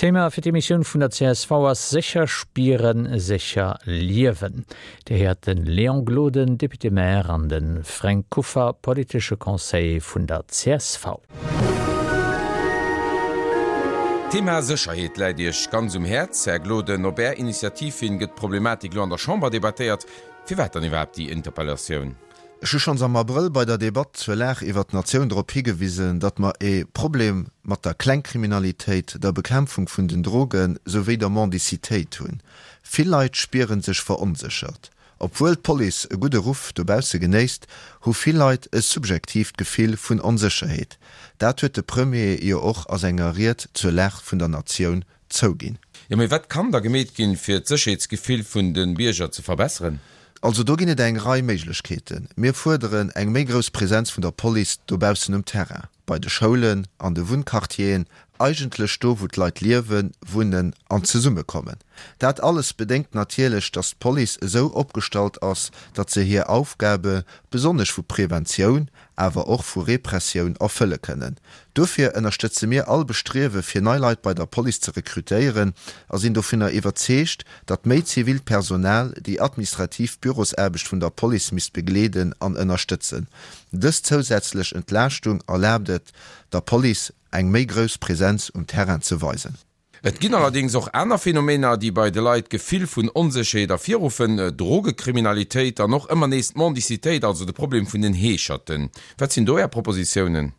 D'Thema fir d'Emissioun vun der csv ass Sécher spieren, sécher liewen. Dir héiert de Léon Gloden, Député-maire, an de Fränk Kuffer, politesche Conseiller vun der csv. D'Thema Sécherheet läit Iech ganz um Häerz, Här Gloden. Op Är Initiativ hin gëtt d'Problematik elo an der Chamber debattéiert. Firwat dann iwwerhaapt déi Interpellatioun? Ech hu schonns am Abrëll bei der Debatt zur Lag iwwert d'Natioun drop higewisen, datt mer e Problem mat der Klengkriminalitéit, der Bekämpfung vun den Droge souwéi der Mendicitéit hunn. Vill Leit spiere sech veronséchert. Obwuel d'Police e gudde Ruff dobausse genéisst, hu vill Leit e subjektiivt Gefill vun Onsécherheet. Dat huet de Premier jo och a senger Ried zur Lag vun der Natioun zouginn. Jo, mee wat kann da gemeet ginn, fir d'Sécherheetsgefill vun de Bierger ze verbesseren? Also do ginn et eng Rei Méiglechkeeten. Mir fuerderen eng méi grouss Präsenz vun der Police dobaussen um Terrain, bei de Schoulen, an de Wunnquartieren, eigentlech do wou d'Leit liewen, wunnen an zesummekommen. Dat alles bedéngt natierlech, datt d'Police esou opgestallt ass, datt se hir Aufgabe, besonnesch vu Preventioun, awer och vu Repressioun erfëlle kënnen. Dofir ënnerstëtze mir all Bestriewe fir nei Leit bei der Police ze rekrutéieren a sinn dovunner iwwerzeegt, datt méi zivilt Personal déi administrativ Bürosaarbecht vun der Police misst begleeden an ënnerstëtzen. Dës zousätzlech Entlaaschtung erlaabt et der Police eng méi grouss Präsenz um Terrain ze weisen. Et ginn allerdéngs och aner Phänomener, déi bei de Leit d'Gefill vun Onsécherheet ervirruffen, Drogekriminalitéit an och ëmmer nees d'Mendicitéit, also de Problem vun den Heescherten. Wat sinn do Är Propositiounen?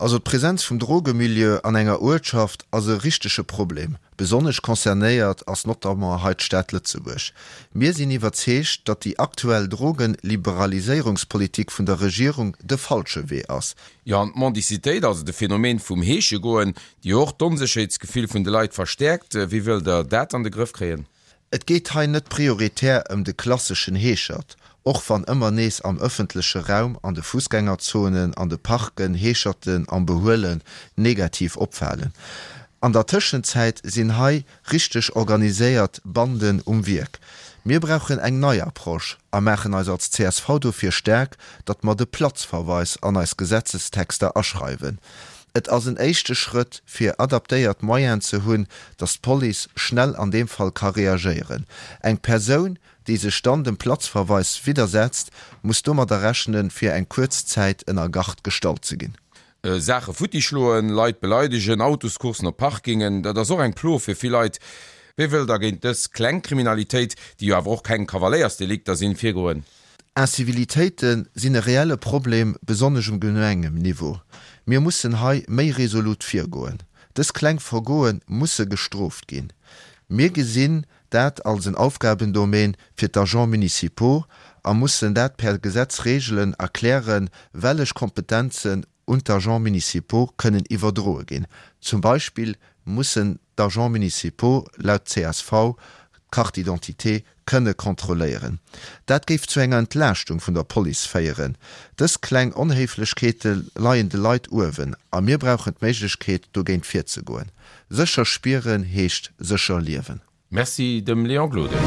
Also d'Präsenz vum Drogemilieu an enger Uertschaft ass e richtege Problem. Besonnesch concernéiert ass notamment hei d'Stad Lëtzebuerg. Mir sinn iwwerzeegt, datt déi aktuell Drogenliberaliséierungspolitik vun der Regierung de falsche Wee ass. Jo, an d'Mendicitéit, also de Phänomen vum Heeschegoen, déi jo och d'Onsécherheetsgefill vun de Leit verstäerkt. Wéi wëllt Der dat an de Grëff kréien? Et geet hei net prioritär ëm de klasseschen Heeschert, och wann ëmmer nees am ëffentleche Raum, an de Fussgängerzonen, an de Parken Heescherten am Behuelen negativ opfalen. An der Tëschenzäit sinn hei richteg organiséiert Banden um Wierk. Mir brauchen eng nei Approche a maachen eis als csv dofir staark, datt mer de Platzverweis an eis Gesetzestexter aschreiwen. Et ass en éischte Schrëtt, fir adaptéiert Moyenen ze hunn, datt d'Police schnell an deem Fall ka reagéieren. Eng Persoun, déi sech dann dem Platzverweis widdersetzt, muss domadder rechnen, fir eng kuerz Zäit ënner Gard gestallt ze ginn. Saache futti schloen, Leit beleidegen, Autoscoursen op Parkingen, dat ass och eng Plo fir vill Leit. Wéi wëllt Der géint dës kleng Kriminalitéit, déi jo awer och keng Kavaléiersdelikter sinn, virgoen? Incivilitéite sinn e reelle Problem, besonnesch um Gemengenniveau. Mir mussen hei méi resolut virgoen. Dës kleng Vergoe musse gestrooft ginn. Mir gesinn dat als en Aufgabendomaine fir d'Agents municipaux a mussen dat per Gesetz regelen a klären, wellech Kompetenzen un d'Agents municipaux kënnen iwwerdroe ginn. Zum Beispill mussen d'Agents municipaux laut csv d'Carte d'identité kënne kontrolléieren. Dat géif zu enger Entlaaschtung vun der Police féieren. Dës kleng Onhéiflechkeete leien de Leit uewen a mir brauchen d'Méiglechkeet, dogéint virzegoen. Sécher spieren heescht sécher liewen. Merci dem Léon Gloden.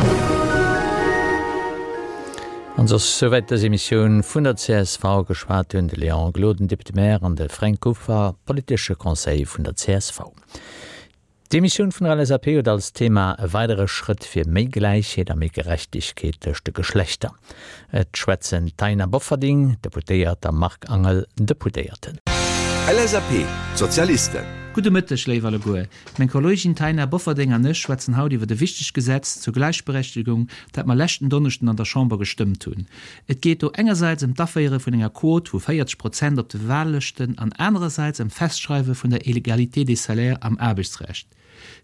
An soss souwäit dës Emissioun vun der csv. Geschwat hunn de Léon Gloden, Député-maire, an de Fränk Kuffer, politesche Conseiller vun der csv. D'Emissioun vun der LSAP huet als Thema E weidere Schrëtt fir méi Gläichheet a méi Gerechtegkeet tëscht de Geschlechter. Et schwätzen d'Taina Bofferding, Deputéiert, a Marc Angel, Deputéierten. LSAP, D'Sozialisten. Gudde Mëtteg, léif alleguer. Meng Kollegin Taina Bofferding an ech schwätzen haut iwwert e wichtegt Gesetz zur Gläichberechtegung, dat mer leschten Donneschden an der Chamber gestëmmt hunn. Et geet do engersäits ëm d'Aféiere vun enger Quot vu 40 Prozent op de Wahllëschten an anerersäits ëm d'Festschreiwe vun der Égalité des salaires am Aarbechtsrecht.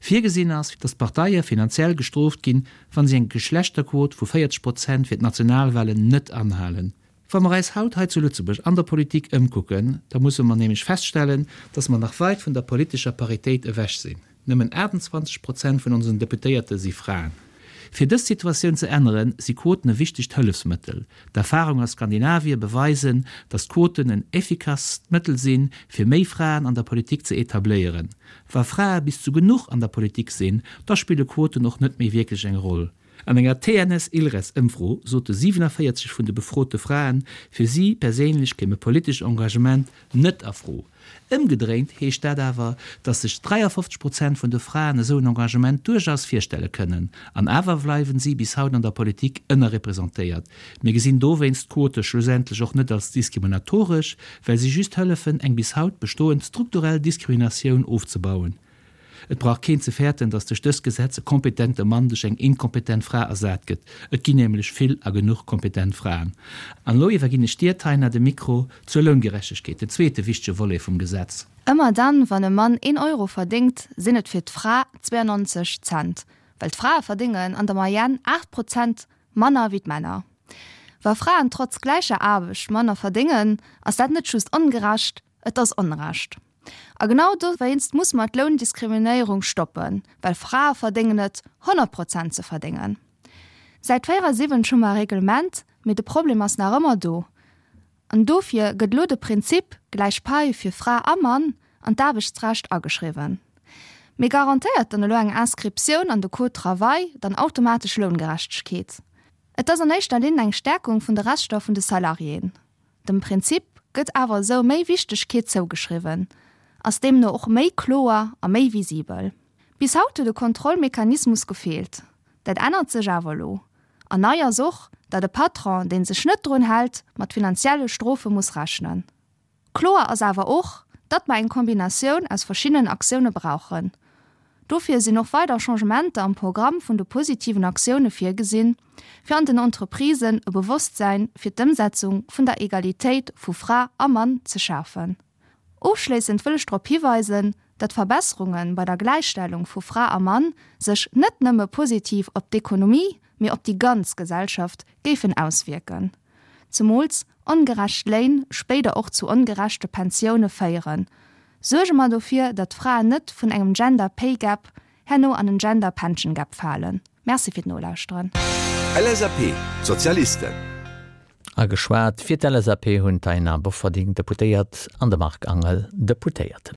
Virgesinn ass, datt d'Parteie finanziell gestrooft ginn, wa si eng Geschlechterquot vu 40 Prozent fir d'Nationalwahlen net anhalen. Wa mer eis haut hei zu Lëtzebuerg an der Politik ëmkucken, da musse mer nämlech feststellen, dass mer nach weit vun der politescher Paritéit ewech sinn. Nëmmen 28 Prozent vun onsen Deputéierte si Fraen. Fir dës Situatioun ze änneren, si Quoten e wichtegt Hëllefsmëttel. D'Erfahrung a Skandinavie beweisen, dass d'Quoten en effikasst Mëttel sinn, fir méi Fraen an der Politik ze etabléieren. Wa Frae bis zu genuch an der Politik sinn, da spille Quoten och net méi wierklech eng Roll. An enger TNS-Ilres-Ëmfro sote 47 vun de befrote Fraen, fir si perséinlech kéim e politescht Engagement net a Fro. Ëmgedréint heescht dat awer, datt sech 53 Prozent vun de Fraen esou en Engagement duerchaus virstelle kënnen. An awer bleiwen si bis haut an der Politik ënnerrepresentéiert. Mir gesinn dowéinst d'Quote schlussendlech och net als diskriminatoresch, well si just hëllefen, eng bis haut bestoend strukturell Diskriminatioun ofzebauen. Et brauch keen ze fäerten, datt duerch dëst Gesetz e kompetente Mann duerch eng inkompetent Fra ersat gëtt. Et ginn nämlech vill a genuch kompetent Fraen. An elo iwwerginn ech dir, Taina, de Mikro zur Loungerechtegkeet, den zweete wichtege Volet vum Gesetz. Ëmmer dann, wann e Mann een Euro verdéngt, sinn et fir d'Fra 92 Cent, well d'Frae verdéngen an der Moyenne 8 Prozent manner wéi d'Männer. Wa Fraen trotz gläicher Aarbecht manner verdéngen, ass dat net just ongerecht, et ass Onrecht. A genau dowéinst muss mer d'Loundiskriminéierung stoppen, well Frae verdéngen et, 100 Prozent ze verdéngen. Säit 74 hu mer e Reglement, mee de Problem ass nach ëmmer do. An dofir gëtt elo de Prinzip gläich Pai fir Fra a Mann an d'Aarbechtsrecht ageschriwwen. Mee garantéiert dann elo eng Inscriptioun an de Code travail dann automatesch Loungerechtegkeet? Et ass an éischter Linn eng Stärkung vun de Rechter vun de Salariéen. Dem Prinzip gëtt awer esou méi Wichtegkeet zougeschriwwen, ass deemno och méi kloer a méi visibel. Bis haut huet e Kontrollmechanismus gefeelt. Dat ännert sech awer elo. An nei ass och, datt e Patron, dee sech net drun hält, mat finanzielle Strofe muss rechnen. Kloer ass awer och, datt mer eng Kombinatioun aus verschiddenen Aktioune brauchen. Dofir sinn och weider Changementer am Programm vun de positiven Aktioune virgesinn, fir an den Entreprisen e Bewosstsäin fir d'Ëmsetzung vun der Egalitéit vu Fra a Mann ze schafen. Ofschléissend wëll ech drop hiweisen, datt Verbesserunge bei der Gläichstellung vu Fra a Mann sech net nëmme positiv op d'Ekonomie, mee op déi ganz Gesellschaft géifen auswierken. Zemools ongerecht Léin spéider och zu ongerechte Pensioune féieren. Suerge mer dofir, datt d'Fraen net vun engem Gender Pay Gap herno an en Gender Pension Gap falen. Merci fir d'Nolauschteren. LSAP, D'Sozialisten. A geschwat fir d'LSAP hunn d'Taina Bofferding, Deputéiert, an de Marc Angel, Deputéierten.